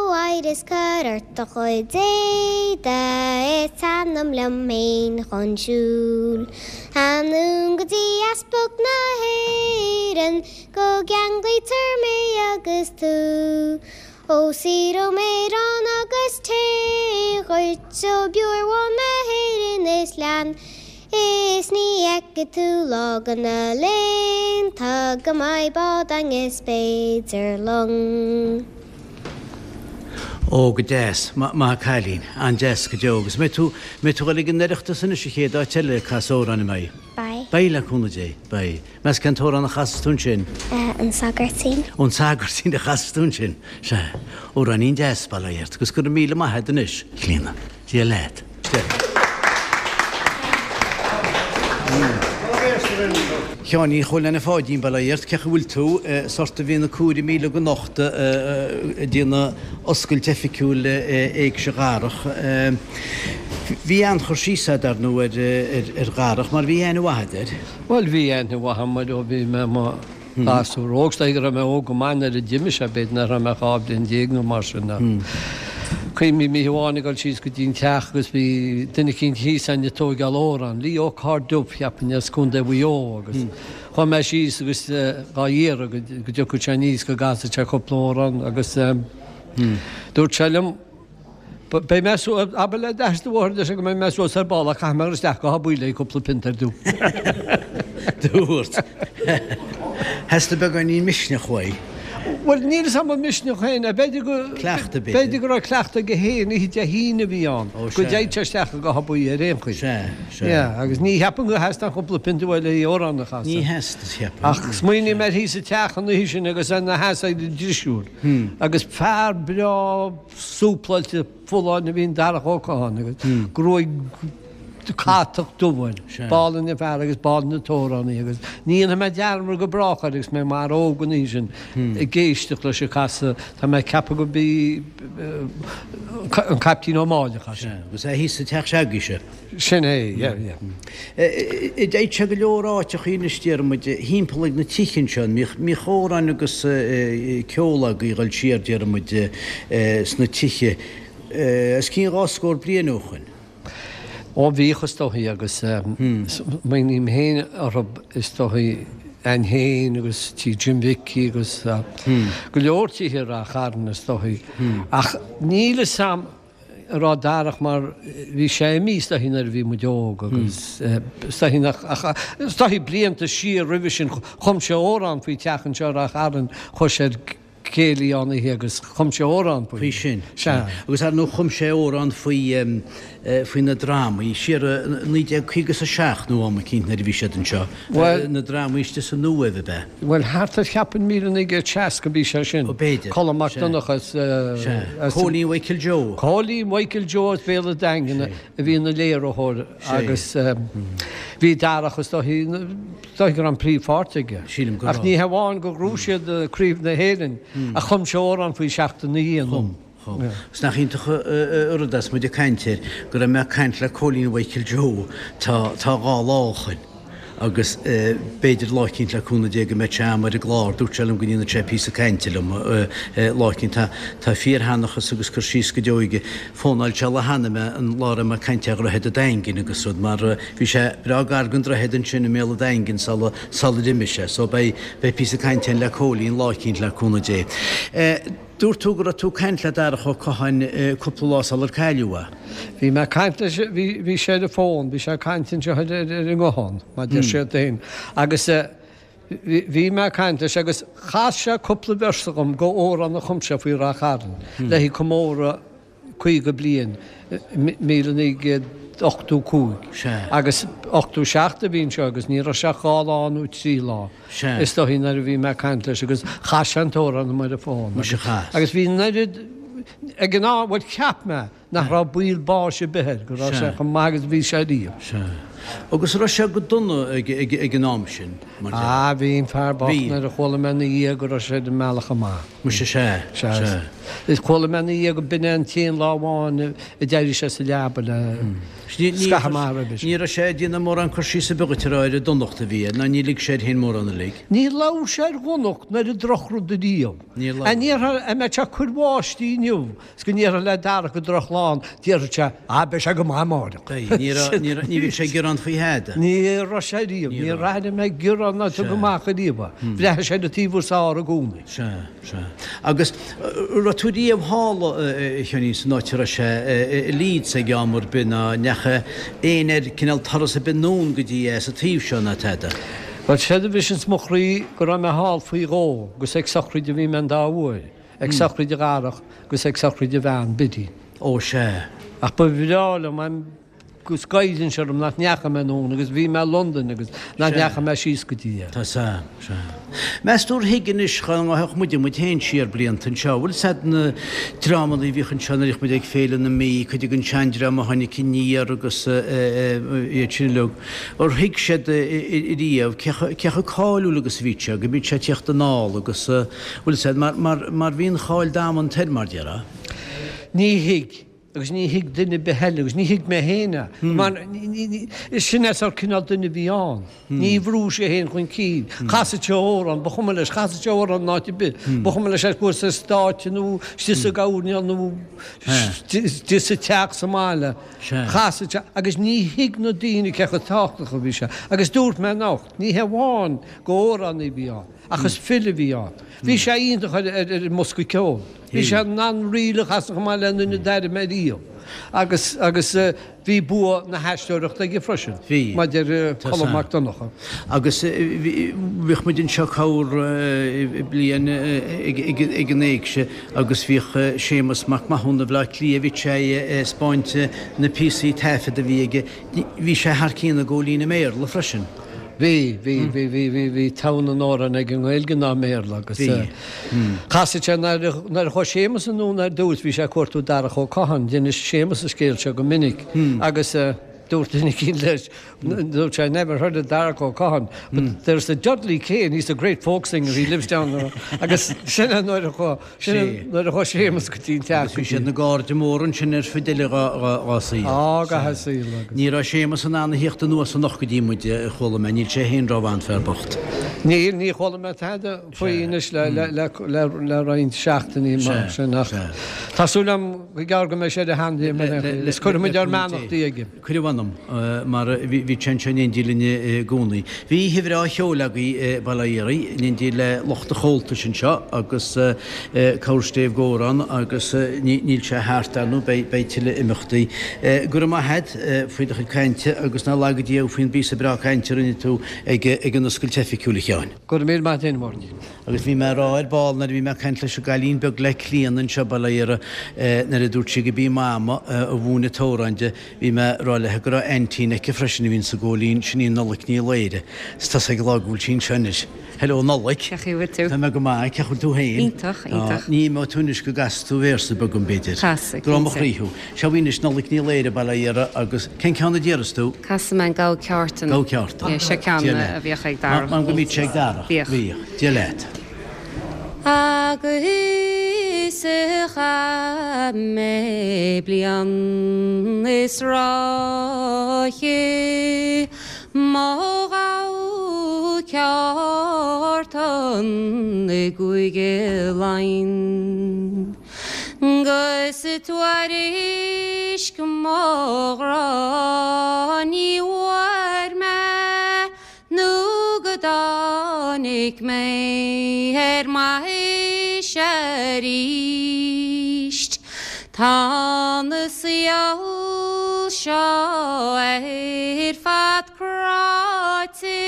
éirigh is cuir ort do chuid éadaigh is teannam liom féin chun siúil. Anonn go dtí Easpag na hÉireann go gceanglaítear mé agus tú. Ó saothróidh mé arán agus tae dhuit ó bhior bhán na hÉireann is leann is ní fheicfidh tú lá de na laethanta go mbeidh bád a'inn is b'fhéidir long. Ó, go deas. Maith an cailín. An-deas go deo. Agus mbeidh tú, mbeidh tú ag dul ag an Oireachtas anois an chéad áit eile ag casadh amhráin, an mbeidh? Beidh. Beidh, le cúnamh Dé. Beidh. Meas cén t-amhrán a chasfas tú ansin? An Sagairtín. Ó an Sagairtín a chasfas tú ansin. Sea. Amhráinín deas, bail ó Dhia ort. Agus go raibh míle maith agat anois, a Chlíona. Dia leat. Dia. A Sheáinín Chóil Anna Pháidín, bail ó Dhia ort. Cén chaoi a bhfuil tú? Is ort a bhí na comhairle míle go anocht ag déanamh oscailt oifigiúil Éigse Dharach. Bhí an-chur síos agat, dar ndóigh, ar Dharach mar bhí aithne mhaith agat air. Bhuel, bhí aithne mhaith agam air ó bhí mé i mo ghasúr óg. Is dóigh go raibh mé óg go maith nuair a d'imigh sé, b'fhéidir nach raibh mé ach 12 bliain nó mar sin. Ach cuimhním oíche amháin ag dul síos go dtí an teach agus bhí duine eicínt thíos ann ag tóigeáil amhrán, Leo Ó Cairrdubh, cheapfainn, as Contae Mhaigh Eo agus chuaigh mé síos agus dhá iarraidh go dtiocfadh sé aníos go gcasfadh sé cúpla amhrán agus dúirt sé liom, Beidh mé suas, abair le d'athair is do mháthair leis go mbeidh mé suas ar ball ach caithfidh mé a dhul isteach go Áth Buí le cúpla pionta ar dtús. Dúirt. Theastaigh beagáinín misneach uaidh. Bhuel, níl 'fhios a'm an misneach féin é. B'fhéidir go. Cleachtadh, b'fhéidir. B'fhéidir go raibh cleachtadh aige féin, oíche Dé hAoine a bhí ann, Ó, go sea. dtéadh sé isteach go Áth Buí ar aon chaoi. Sea, sea. Yeah, agus ní cheapaim gur theastaigh an chúpla pionta uaidh le amhrán a chasadh. Ní theastaigh, cheapfainn. Ach smaoiním air thíos sa teach an oíche sin agus é ina sheasamh ag an drisiúr. Agus fear breá súpláilte folláin a bhí in Darach Ó Catháin agus gruaig catach dubh air. B'álainn an fear agus b'álainn an t-amhránaí agus ní dhéanfaidh mé dearmad go brách air agus mé i m'fhear óg an oíche sin ag éisteacht leis ag casadh. Tá mé ag ceapadh go b'í an Caiptín Ó Máille a chas sé. Agus é thíos sa teach s'agaibhse. Sin é, yeah, yeah. D'fhaigheadh sé go leor áiteachaí anois, déarfaidh muid, thimpeall ag na tithe anseo. An mbíodh amhráin agus ceol agaibh ag dul siar, déarfaidh muid, sna tithe, os cionn dhá scór bliain ó shoin. Ó bhíodh is dóichí agus smaoiním féin orthu is dóichí a'inn féin agus tí Jim Mhicí agus go leor tithe i Rath Chairn is dóichí. Ach níl 'fhios a'm an raibh Darach mar bhí sé imithe is dóichí nuair a bhí muid óg agus is dóichí nach ach is dóichí blianta siar roimhe sin chum sé amhrán faoi teach anseo i Rath Chairn chuaigh sé ar céilí ann oíche agus chum sé amhrán faoi. Faoi sin. Sea. Agus ar ndóigh chum sé amhrán faoi faoi na drámaí siar i 1957 nó am eicínt nuair a bhí siad anseo. Bhuel. Na drámaí istigh san Uaimh ab ea? Bhuel, thart ar cheapfainn míle 1960 bhí sé sin. Ó, b'fhéidir. Colm Mac Donncha as. Sea. Cóilín Mhichael Joe. Cóilín Mhichael Joe as Béal an Daingin a bhí ina léiritheoir agus bhí Darach is dóichí, is dóichí go raibh an príomhpháirt aige. Sílim go raibh. Ach ní hamháin gur ghnóthaigh siad Craobh na hÉireann ach chum sé amhrán faoi Seachtain na Chum. Mícheál. Is nach iontach an rud é is muid ag caint air, go raibh mé ag caint le Cóilín Mhichael Joe tá tá 2 lá ó shoin agus b'fhéidir lá eicínt le cúnamh Dé go mbeidh sé a'm ar an gclár, dúirt sé liom go ndéanfadh sé píosa cainte liom lá eicínt. Tá tá fíorsheanchas agus cur síos go deo aige. Fónáil sé lá cheana mé an lá a raibh mé ag caint ar Dhroichead an Daingin agus rud mar bhí sé breá gar don droichead ansin i mbéal an Daingin sula sular imigh sé. So beidh beidh píosa cainte a'inn le Cóilín lá eicínt le cúnamh Dé. Dúirt tú go raibh tú ag caint le Darach Ó Catháin cúpla lá sular cailleadh é. Bhí mé ag caint leis, bhí, bhí sé ar an bhfón, bhí sé ag caint anseo ar, ar, ar an nguthán, mar deir siad féin. Agus bhí, bhí mé ag caint leis agus chas sé cúpla véarsa dhom go amhrán a chum sé faoi Ráth Chairn le haghaidh comóradh 50 bliain, 1985. Agus 87 a bhí anseo agus ní raibh sé ach dhá lá nó trí lá is dóichí nuair a bhí mé ag caint leis agus chas sé an t-amhrán dom ar an bhfón. Agus bhí an oiread ag an am, bhuel cheap mé nach raibh baol báis ar bith air, go raibh sé chomh maith agus a bhí sé riamh. Agus raibh sé go dona ag an am sin, mar dhea? Ah, bhí an fear bocht nuair a chuala mé ina dhiaidh go raibh sé ar an mbealach amach. Muise sea, sea. Is chuala mé ina dhiaidh go b'in é an t-aon lá amháin a d'éirigh sé sa leaba le scaitheamh maith roimhe sin. Ní raibh sé ag déanamh mórán cur síos ar bith dhuit a rá ar an donacht a bhí air, ná ní lig sé air féin mórán uilig. Ní labhair sé ar dhonacht ná ar an drochrud ariamh. Níor labhair. An ndéarfá, an mbeadh sé ag cur báistí inniu 's go ndéarfá le Darach gur drochlá ann, déarfadh sé, ah, beidh sé go maith amáireach. Beidh. Ní raibh, ní raibh, ní bhíodh sé ag gearán faoi thada. Ní raibh sé riamh. Ní Níor airigh mé gearán ná tug amach ariamh é. Bhreathnaigh sé ar an taobh is fhearr i gcónaí. Sea, sea. Agus raibh tú riamh thall, a Sheáinín, san áit a raibh sé i Leeds ag am ar bith ná ndeachaigh éinne ar cineál turas ar bith anonn go dtí é sa taobh seo ná tada? Bhuel, séard a bhriseanns mo chroí go raibh mé thall faoi dhó agus ag sochraid a bhí mé an dá uair. Ag sochraid a Dharach agus ag sochraid a bhean, Biddy. Ó sea. Ach ba bhreá liom agus goileann sé orm nach ndeachaigh mé anonn agus bhí mé i Londain agus nach ndeachaigh mé síos go dtí é. Tá sea, sea. Meas tú ar thuig anois dá ngabhfadh muide muid féin siar blianta anseo, bhfuil 's a'd na dreamanna a bhíodh anseo nuair a bhíodh muid ag Féile na Mí, cuid den seandream a tháinig aniar agus iad sin uilig. Ar thuig siad riamh cé chomh cáiliúil agus a bhí sé, go mbíodh sé ag tíocht anall agus bhfuil 's a'd, mar, mar, mar bhí an cháil damanta air, mar déarfá. Ní thuig, agus ní thuig duine ar bith eile, agus ní thuig mé féin é, mar sin é sórt cineál duine a bhí ann. Ní bhrúdh sé féin chun cinn. Chasadh sé amhrán, ba chuma leis, chasadh sé amhrán in áit ar bith. Ba chuma leis ar chuas ar stáitse nó istigh sa gcoirnéal nó istigh sa teach sa mbaile. Chasadh sé, agus ní thuig na daoine cé chomh tábhachtach a bhí sé. Agus dúirt mé anocht, ní hé amháin gur amhránaí a bhí ann, Ach is file a bhí ann. Bhí sé iontach ar an mbosca ceoil. Bhí sé in ann ríl a chasadh chomh maith le aon duine d'airigh mé riamh. Agus, agus bhí bua na haisteoireachta aige freisin. Bhí. Mar deir Colm Mac Donncha. Agus bhíodh muid anseo corr bliain ag an éigse agus bhíodh Séamus Mac Mathúna Bhaile Átha Cliath, bhíodh sé ag 'spáint na píosaí taifead a bhí aige. Bhí sé thar cionn i gCóilín i mBéarla freisin. Bhí, bhí, bhí, bhí, bhí, bhí togha na n-amhrán aige i nGaeilge ná i mBéarla agus Bhí. chasadh sé nuair a, nuair a chuaigh Séamus anonn ar dtús bhí sé ag cuartú Darach Ó Catháin, d'inis Séamus an scéal seo go minic agus dúirt duine eicínt leis, dúirt sé, I never heard of Darach Ó Catháin but there's a Dudley Kane, he's a great folk singer, he lives down the road agus sin é nuair a chuaigh, Sin é nuair a chuaigh Séamus go dtí an teach. Agus bhí siad ina gcairde móra ansin ar fud uile dhá saol. Á, gach a saol agus. Ní raibh Séamus in ann a thíocht anuas anocht go dtí muid, a chuala mé. Níl sé féin rómhaith, an fear bocht. Níl, ní chuala mé tada faoi anois le roinnt seachtainí mar sin ach tá súil agam go gearr go mbeidh sé ar a sheanléim ar aon chaoi. Is cuirfidh muid ár mbeannachtaí aige. Cuir a mh'anam, mar bhí sé anseo in éindí linn i gcónaí. Bhí oíche bhreá cheoil agaibh i Baile Átha Fhiaraigh, in éindí le lucht an Chomhaltais anseo agus cabhair stéibh Górán agus níl sé thart, ar ndóigh, beidh tuilleadh imeachtaí. Go raibh maith a't faoi do chuid cainte agus ná laga Dia thú faoin bpíosa breá cainte a rinne tú ag an oscailt oifigiúil, a Sheáin. Go raibh míle maith a't, a Mháirtín. Agus bhí mé ag rá ar ball nuair a bhí mé ag caint leis an gcailín beag le Clíona anseo, bail ó Dhia uirthi, nuair a dúirt sí go b'í Mama a mhúin an t-amhrán di, bhí mé ag rá léi go raibh aintín aici freisin a bhíonn sa Góilín, sin í Nollaig Ní Laoire. Is tá ag rá go bhfuil sí anseo anois. Hello Nollaig. Cén chaoi a bhfuil tú? Tá mé go maith, cén chaoi a bhfuil tú féin? Iontach, iontach. Ní imeoidh tú anois go gcasfaidh tú véarsa beag dom b'fhéidir. Casfaidh, Grá mo chroí thú. Seo í anois Nollaig Ní Laoire, bail ó Dhia uirthi, agus cén ceann a déarfas tú? Casfaidh mé an Gabha Ceártan. Gabha Ceártan. Yeah, seo ceann a bhíodh ag Darach. Mar go mbíodh sé ag Darach. Bhíodh. Bhíodh. Dia leat. Agus chaith mé bliain is ráithe Mo ghabha ceártan i gCúige Laighean. 'Gus tuairisc mo ghrá ní bhfuair mé Nó go dtáinig mé ar m'aois aríst. Tá an saol seo ar fad cráite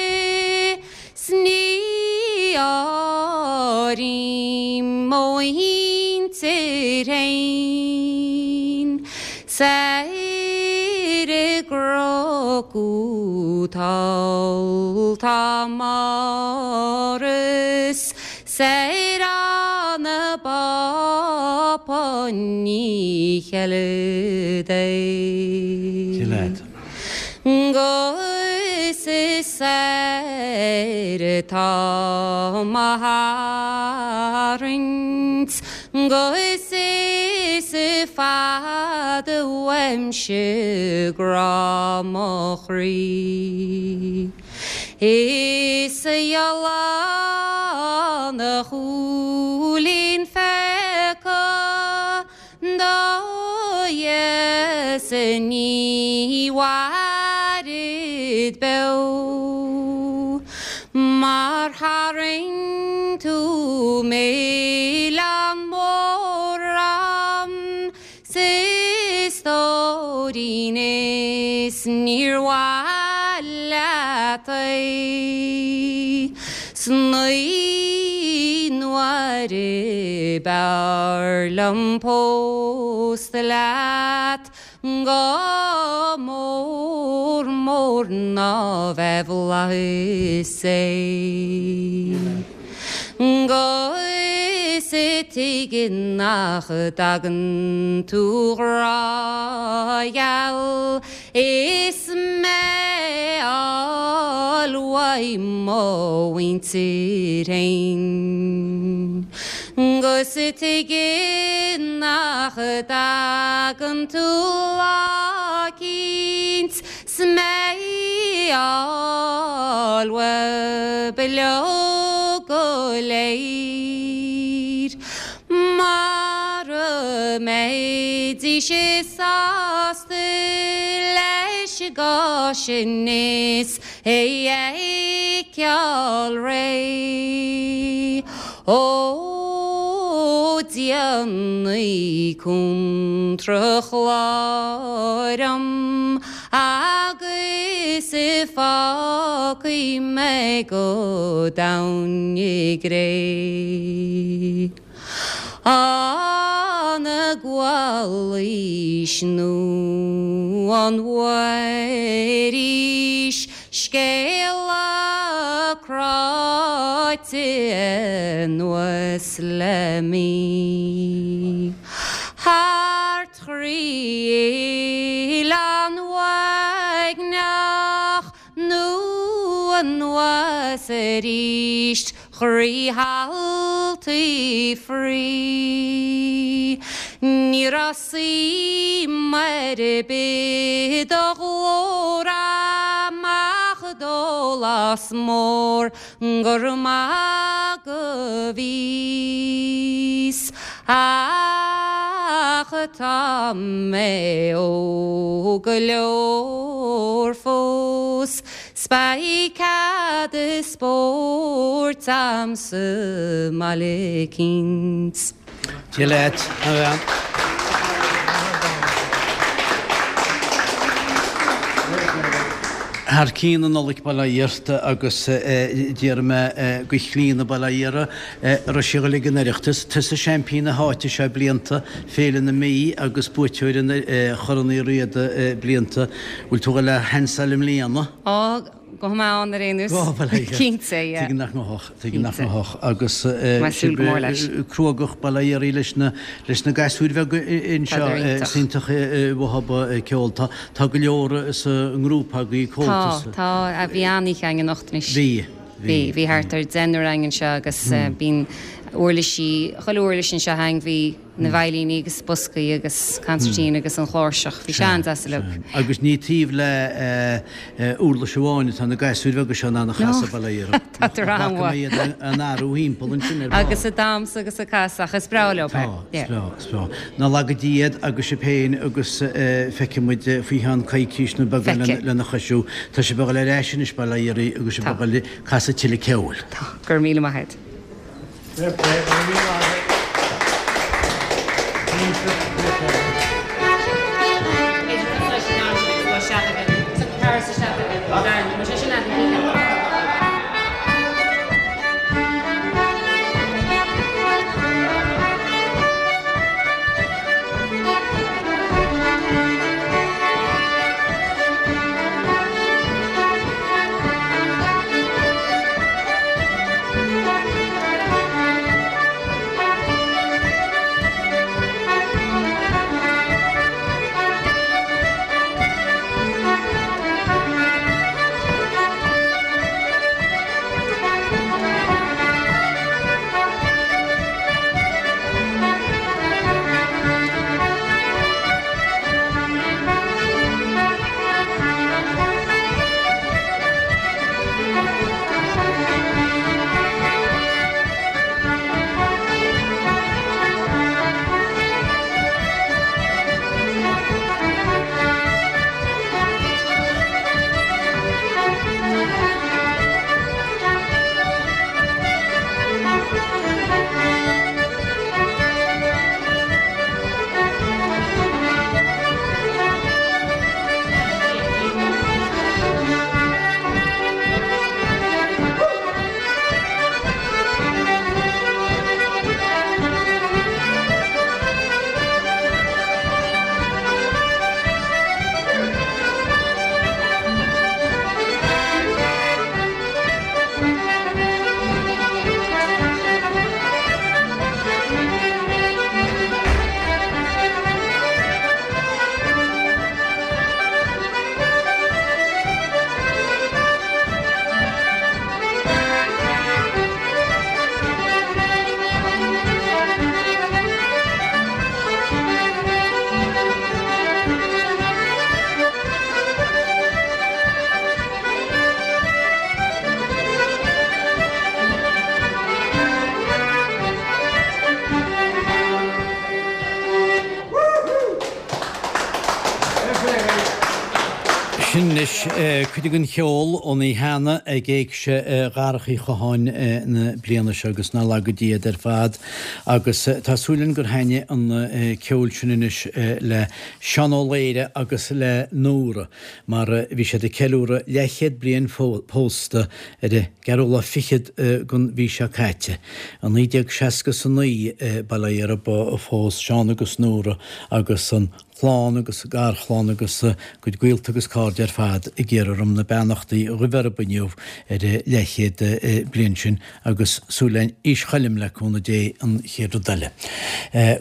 's ní áirím mo mhuintir fhéin. Soir i gCnoc thall tá Máire 's soir an Bápa ní cheilid é. 'Gus is soir atá mo tharraingt 'Gus is fada uaimse grá mo chroí. Is a fhathláin a chúilín phéaca Do Dhia-sa ní mhairid beo Mar tharraing tú milleán mór orm 's a stóirín is níor mhaith leat é 's naoi n-uaire b'fhearr liom pósta leat go mór mór ná bheith i bhflaithis é. 'Gus tuige nach dtagann tú 'grá gheal is mé fháil uaidh mo mhuintir fhéin. 'Gus tuige nach dtagann tú lá eicínt 's mé fháil uaibh uileag go léir. Mara mbeidís sásta leis an gcás sin is é a fheiceáil réidh. Ó déanaigí cuntra chláir 'om agus fágfaidh mé go domhain i gcré. An gcualaís nó an bhfuairís scéala cráite anuas le mí. Thart thrí Oileán Uaigneach nó anuas aríst thrí thaltaí fraoigh. Ní raibh suim ar bith i do ghlór amach dólás mór gur maith go bhíos ach tá mé óg go leor fós 's beidh cead spóirt a'm sa mbaile eicínt. Dia leat, a bhean. Thar cionn na Nollag bail ó Dhia ort agus déarfaidh mé go Chlíona bail ó Dhia uirthi, a raibh sí ag dul ag an Oireachtas, tusa seaimpín na háite seo blianta, Féile na Mí agus buaiteoir an Chorn Uí Riada blianta. Bhfuil tú ag dul a sheansáil i mbliana? Á, Gabhfaidh mé ann ar aon nós. Go bhfuil aige. Cinnte, yeah. Tuigim nach ngabhfadh, tuigim nach Cinnte. ngabhfadh. Agus Tá mé ag súil go mór leis. cruógach bail ó Dhia uirthi leis na, leis na gasúir bheaga anseo. Tá iontach. Is iontach uathub ceol. Tá, tá go leor sa ngrúpa agaibh, Tá, Comhaltas. tá. Bhí an-oíche againn anocht anois. Bhí, bhí. Bhí, bhí thart ar deichniúr againn anseo agus bíonn. Uirlisí, chuile uirlis anseo againn, bhí na veidhlíní agus boscaí agus concertina agus an chláirseach, bhí sé an-deas uilig. Agus ní taobh le uirlis amháin atá na gasúir bheaga seo in ann a chasadh, bail ó Dhia orthu. Tá an-mhaith. Bhfaca mé iad á n-athrú thimpeall ansin ar ball. Agus ag damhsa agus ag casadh ach is breá leo é. Tá, is breá, is breá. Ná laga Dia iad agus sibh féin agus feicfidh muid faoi cheann coicís nó beagán lena chois sin. Tá sibh ag dul ar ais anois, bail ó Dhia oraibh, agus sibh ag dul ag casadh tuilleadh ceoil. Tá. Go raibh míle maith agat. Fair play, go raibh míle maith agat. Sin anois cuid den cheol ón oíche cheana ag Éigse Dharach Uí Chatháin na bliana seo agus ná laga Dia iad ar fad. Agus tá súil againn gur thaitnigh an ceol sin anois le Seán Ó Laoire agus le Nóra mar bhí siad ag ceiliúradh leathchéad bliain pósta ar an gceathrú lá fichead den mhí seo caite. I 1969, bail ó Dhia orthu, a phós Seán agus Nóra agus an chlann agus garchlann agus a gcuid gaolta agus cairde ar fad ag iarraidh orm na beannachtaí a ghabh orthu inniu ar an leathchéad bliain sin agus súil againn aois choilm le cúnamh Dé an chéad rud eile.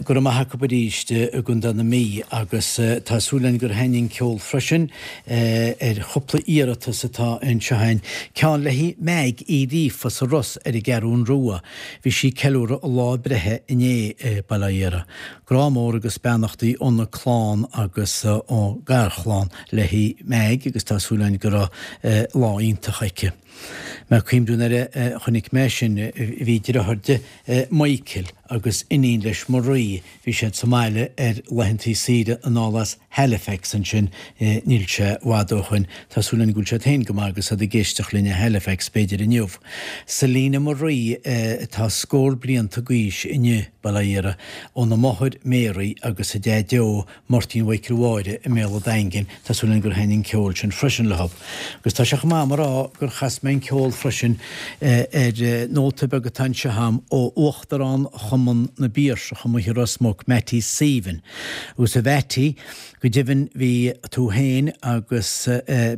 Go raibh maith acu arís i gContae na Mí agus tá súil againn gur thaitnigh an ceol freisin ar chúpla iarratas atá anseo againn. Ceann le haghaidh Meaig Uí Ghríofa sa Ros ar an gCeathrún Rua. Bhí sí ag ceiliúradh a lá breithe inné, bail ó Dhia uirthi. Grá mór agus beannachtaí óna clann agus ón garchlann léi Meaig agus tá súil againn go raibh lá iontach aici. Mé ag cuimhniú nuair a chonaic mé sin, bhí deartháir di, Michael, agus iníon leis Marie, bhí siad sa mbaile ar laethantaí saoire anall as Halifax ansin níl sé i bhfad ó shoin. Tá súil againn go bhfuil siad féin go maith agus iad ag éisteacht linn i Halifax b'fhéidir inniu. Selina Marie atá scór blianta d'aois inniu, bail ó Dhia uirthi, óna máthair Mary agus a deaideo Máirtín Mhichael Mháire i mBéal a' Daingin, tá súil againn gur thaitnigh an ceol sin freisin leo. Agus tá sé chomh maith agam a rá gur chas mé an ceol freisin ar nóta beag atá anseo agam ó Uachtarán Chumann na bPiarsach amuigh i Ros Muc, Mattie Sabin. Agus a Mhattie. Go deimhin bhí tú féin agus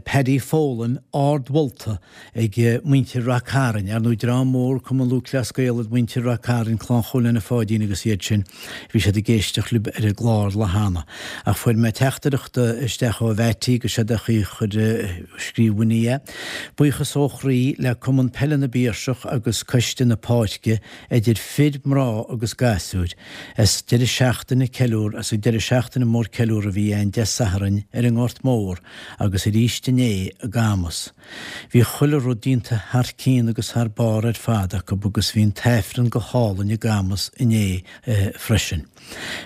Paddy Folan ardmholta ag muintir Rath Cairn, ar ndóigh dream mór Cumann Lúthchleas Gael iad muintir Rath Cairn, Clann Chóil Anna Pháidín agus iad sin, bhí siad ag éisteacht libh ar an gclár lá cheana. Ach fuair mé teachtaireacht isteach ó Mhattie agus séard a chuir, scríobh Winnie é. Buíochas ó chroí le Cumann Peile na bPiarsach agus Coiste na Páirce, idir fir, mná agus gasúir, as deireadh seachtaine ceiliúr as an deireadh seachtaine mór ceiliúr a bhí ann Dé Sathairn ar an nGort Mór agus arís inné i gCamus. Bhí chuile rud déanta thar cionn agus thar barr ar fad acu agus bhí an tAifreann go hálainn i gCamus inné freisin.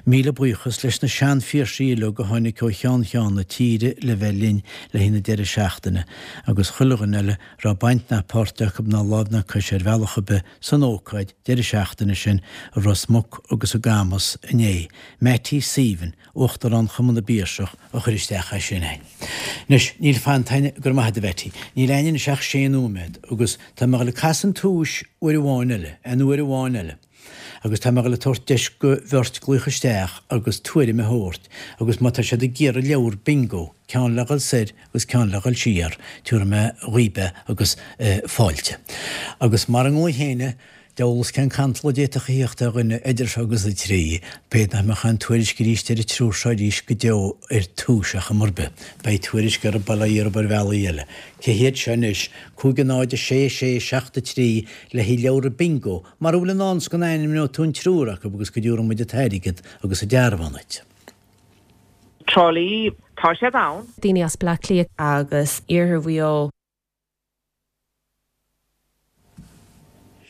Míle buíochas leis na sean-Phiarsaigh uilig a tháinig ó cheann cheann na tíre le bheith linn le haghaidh na deireadh seachtaine agus chuile dhuine eile raibh baint ná páirt acu ná lámh ná cois ar bhealach ar bith san ócáid deireadh seachtaine sin i Ros Muc agus i gCamus inné. Mattie Sabin, Uachtarán Chumann na bPiarsach, a chuir isteach é sin a'inn. Anois, níl fanta a'inn, go raibh maith a'd a Mhattie, níl a'inn anois ach sé nóiméad agus tá mé a dhul ag casadh an tomhais uair amháin eile, aon uair amháin eile. Agus tá mé a dhul ag tabhairt deis go bheirt glaoch isteach agus tuairim a thabhairt agus má tá siad ag iarraidh leabhar bingo, ceann le dhul soir agus ceann le dhul siar, tabharfaidh mé dhaoib é agus fáilte. Agus mara nglaofaidh éinne, deabhal 'fhios cén cantal a d'fhéadfadh a thíocht ar dhuine idir seo agus a trí, b'fhéidir nach mbeadh aon tuairisc arís ar an triúr seo arís go deo ar Tús ar chuma ar bith. Beidh tuairisc orthu bail ó Dhia orthu ar bhealaí eile. Cé hiad seo anois? 5 0 6 6 7 3 le haghaidh leabhra bingo, mara bhfuil i ndán 's go n-ainmneoidh tú an triúr acu agus go dtabharfaidh muid an t-airgead agus an dearbhán duit. Trá Lí, tá siad ann. Daoine as Bleá Cliath. Agus iarthar Mhaigh Eo.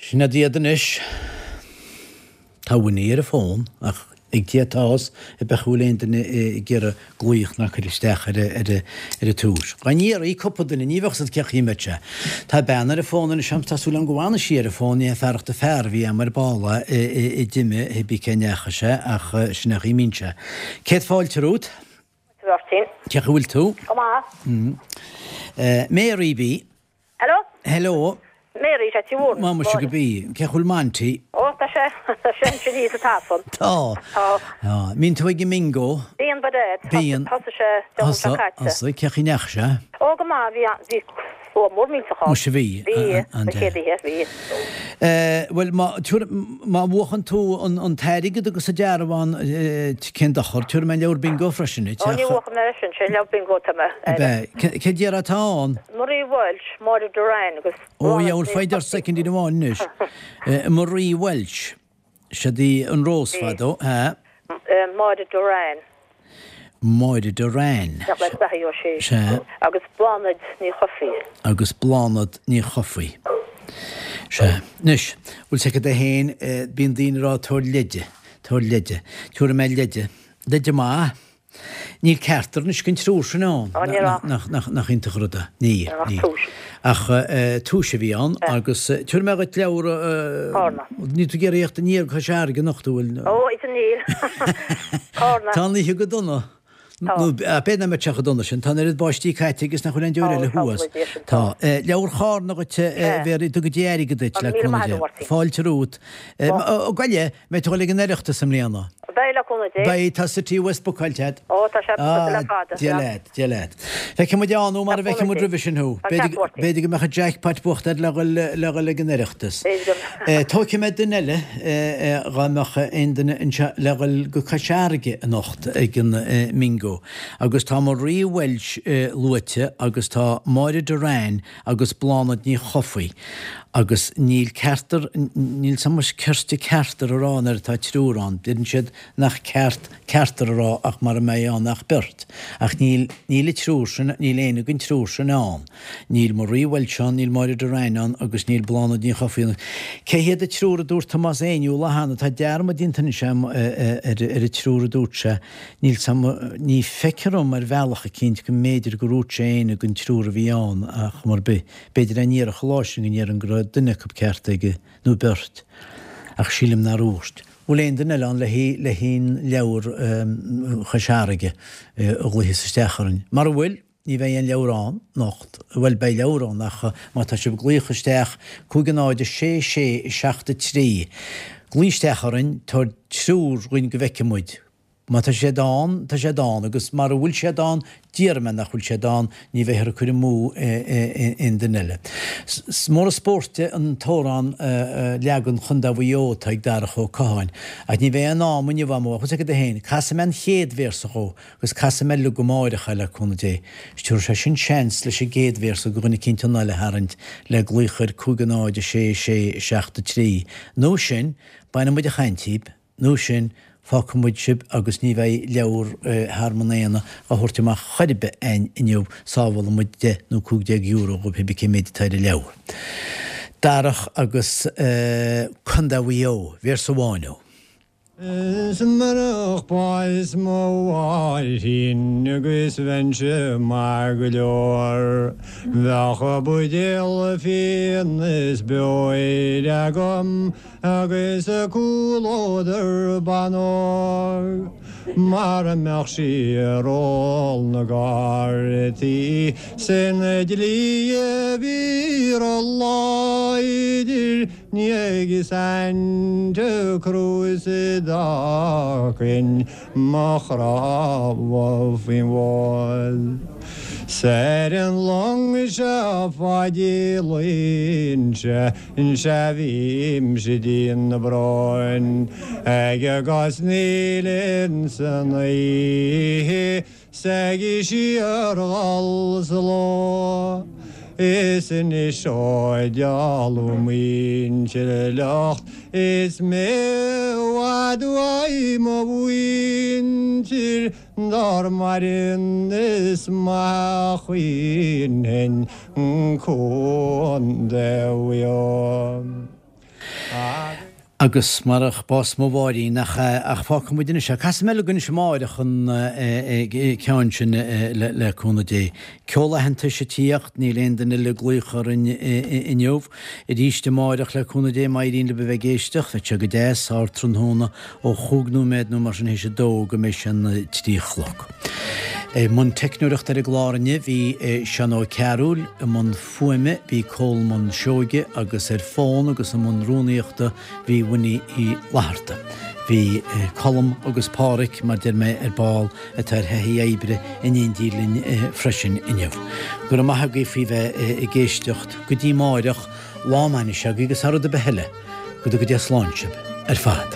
Sin iad anois. Tá Winnie ar an bhfón ach ag Dia atá a fhios an bhfuil aon duine ag iarraidh glaoch ná cur isteach ar ar an tomhas. Dá n-iarrfaí cúpla duine ní bheadh 's agat cén chaoi a mbeadh sé. Tá bean ar an bhfón anois agam tá súil agam go bhfanfaidh sí ar an bhfón ní hé fearacht an fear a bhí agam ar ball a d'imigh pé bí cé ndeachaigh sé ach sin é an chaoi a mbíonn sé. Céad fáilte romhat. Mháirtín. Cén chaoi a bhfuil tú? Go maith. Mary B. Hello? Hello. Mary, sea, Tí Mhór. Má muise go bí. Cén chaoi a bhfuil Monty? Ó, tá sé, tá sé ansin thíos sa tafann. Tá. Tá. Tá. Mbíonn tú ag an mbingo? Bíonn, by dad. Bíonn. Thosaigh sé Dé Luain seo caite. Thosaigh. Cén chaoi a ndeachaigh sé? Ó, go maith, bhí, bhí slua mór millteach ann. Muise bhí. Bhí, an chéad oíche, bhí. Bhuel, má, má bhuachann tú an t-airgead agus an dearbhán, cén dochar, tabharfaidh mé an leabhar bingo freisin duit. Ó, ní bhuafaidh mé é sin, sé an leabhar bingo atá mé. Ab ea? Cé déarfá atá ann? Marie Walsh, Máire Doran agus Ó, yeah, bhuel, foighid ort soicindín amháin anois. Marie Walsh. Siad í an Rós fadó, ea? Máire Doran. Máire Doran. Nach le beatha ó sí. Sea. Agus Bláthnaid Ní Chofaigh. Agus Bláthnaid Ní Chofaigh. Sea. Anois, bhfuil 's agat é féin, bíonn daoine ag rá tabhair leide, tabhair leide. Tabharfaidh mé leide. Leide maith. Níl ceachtar anois den triúr sin ann. Ó, ní raibh. Nach iontach an rud é. Níl, Ní raibh níl. tomhais. Ach tomhais a bhí ann agus tabharfaidh mé dhuit leabhar, Cárna. níl tú ag iarraidh theacht aniar go Cois Fharraige anocht, an bhfuil? Ó, is níl. Cárna. Tá an oíche go dona. Tá. Nó b'fhéidir nach mbeadh sé chomh dona sin. Tá an oiread báistí caite agus nach bhfuil aon deoir eile thuas. Tá, Tá. Leabhar Chárna dhuit, a Mhéaraí, go dtuga Dia airgead duit, le Míle cúnamh maith agat, Dé. a Mháirtín. Fáilte romhat. Ó, gabh i leith, mbeidh tú ag dul ag an Oireachtas i mbliana? Beidh, le cúnamh Dé. Beidh, tá City West bookáilte agat. Ó, tá sé bookáilte le fada. Dia leat, Dia leat. Feicfidh muid ann thú mara bhfeicfidh muid roimhe sin thú. B'fhéidir go mbeadh an jackpot buachta agat le dhul le dhul ag an Oireachtas. Tógfaidh mé duine eile dhá mbeadh aon duine anseo le dhul go Cois Fharraige anocht ag an mBingo. Agus tá Marie Walsh luaite agus tá Máire Doran agus Bláthnaid Ní Chofaigh agus níl ceartar, níl so much cirte ceartar a rá nuair atá triúr ann, deireann siad nach ceart ceartar a rá ach mara mbeidh ann ach beirt. Ach níl, níl an triúr sin, níl éinne den triúr sin ann. Níl Marie Walsh ann, níl Máire Doran ann agus níl Bláthnaid Ní Chofaigh ann. Cé hiad an triúr a dúirt Tomás Éinniú lá cheana? Tá dearmad déanta anois agam ar an triúr a dúirt sé. Níl 's a'm, ní feictear dhom ar bhealach eicínt go mb'fhéidir gur dhúirt sé éinne den triúr a bhí ann ach chuma ar bith, b'fhéidir dá ndéarfadh an lá sin go ndéarfainn go raibh duine acu ceart aige, nó beirt. Ach sílim nár dhúirt. Bhfuil aon duine eile ann le le haon leabhar Chois Fharraige a ghlaofas isteach orainn? Mara bhfuil, ní bheidh aon leabhar ann anocht. Bhuel, beidh leabhar ann ach má tá sibh ag glaoch isteach, 5 0 6 6 7 3, glaoigh isteach orainn, tabhair triúr dhuinn go bhfeicfidh muid. Má tá siad ann, tá siad ann, agus mara bhfuil siad ann, déarfaidh mé nach bhfuil siad ann, ní bheifear ag cur amú aon duine eile. Is mór an spórt é an t-amhrán leagan Chontae Mhaigh Eo atá ag Darach Ó Catháin, ach ní bheidh aon am inniu agam, bheadh fhios agat féin, casfaidh mé an chéad véarsa dhó agus casfaidh mé uilig amáireach é le cúnamh Dé. Is tabharfaidh sé sin seans leis an gcéad véarsa do dhuine eicínt anáil a tharraingt le glaoch ar 5 0 6 6 7 3. Nó sin, bainfidh muid an chaint díbh. Nó sin, fágfaidh muid sibh agus ní bheidh leabhar Thearmann Éanna á thabhairt amach chor ar bith a'inn inniu, sábhálfaidh muid deich nó €15 dhóibh pé bith cé méid atá ar an leabhar. Darach agus Contae Mhaigh Eo, véarsa amháin ó. Is murach bás mo mháithrín agus bheinnse maith go leor, bheadh buidéal fíon is beoir agam Agus comhluadar ban óg mara mbeadh sí ar ól na gcártaí sin dlí a bhí ró-láidir ní ag Santa Cruz a d'fhágfainn mo chnámha faoin bhfód. 'S ar an long seo fá dílínse sea bhímse dian na bróin ag cosnaíl insan oíche 's ag síorghol sa ló. Is anois ó d'éalódh muintir fhliucht is mé i bhfad uaidh mo mhuintir Dár maireann is maith a chaoinfinn Contae Mhaigh Eo. Agus marach bás mo mháithrín, nach ea, ach fágfaidh muid anois é. Casfaidh mé uilig anois amáireach an ceann sin le cúnamh Dé. Ceol aitheantais ag tíocht, níl aon duine eile ag glaoch orainn inniu. Arís amáireach le cúnamh Dé, má éiríonn libh a bheith ag éisteacht, bheadh sé go deas, ardtráthnóna Ó chúig nóiméad nó mar sin théis a dó go mbeidh sé an 3 a chlog. I mbun teicneoireachta ar an gclár inniu bhí Seán Ó Cearúil, i mbun fuaime bhí Colmán Seoige agus ar fón agus i mbun rúnaíochta bhí Winnie Uí Fhlatharta. Bhí Colm agus Páraic, mar deir mé ar ball, atá ar thaithí oibre in éindí linn freisin inniu. Go raibh maith agaibh faoi bheith ag éisteacht. Go dtí amáireach, lá maith anois agaibh agus thar rud ar bith eile, Go dtuga Dia slán sibh ar fad.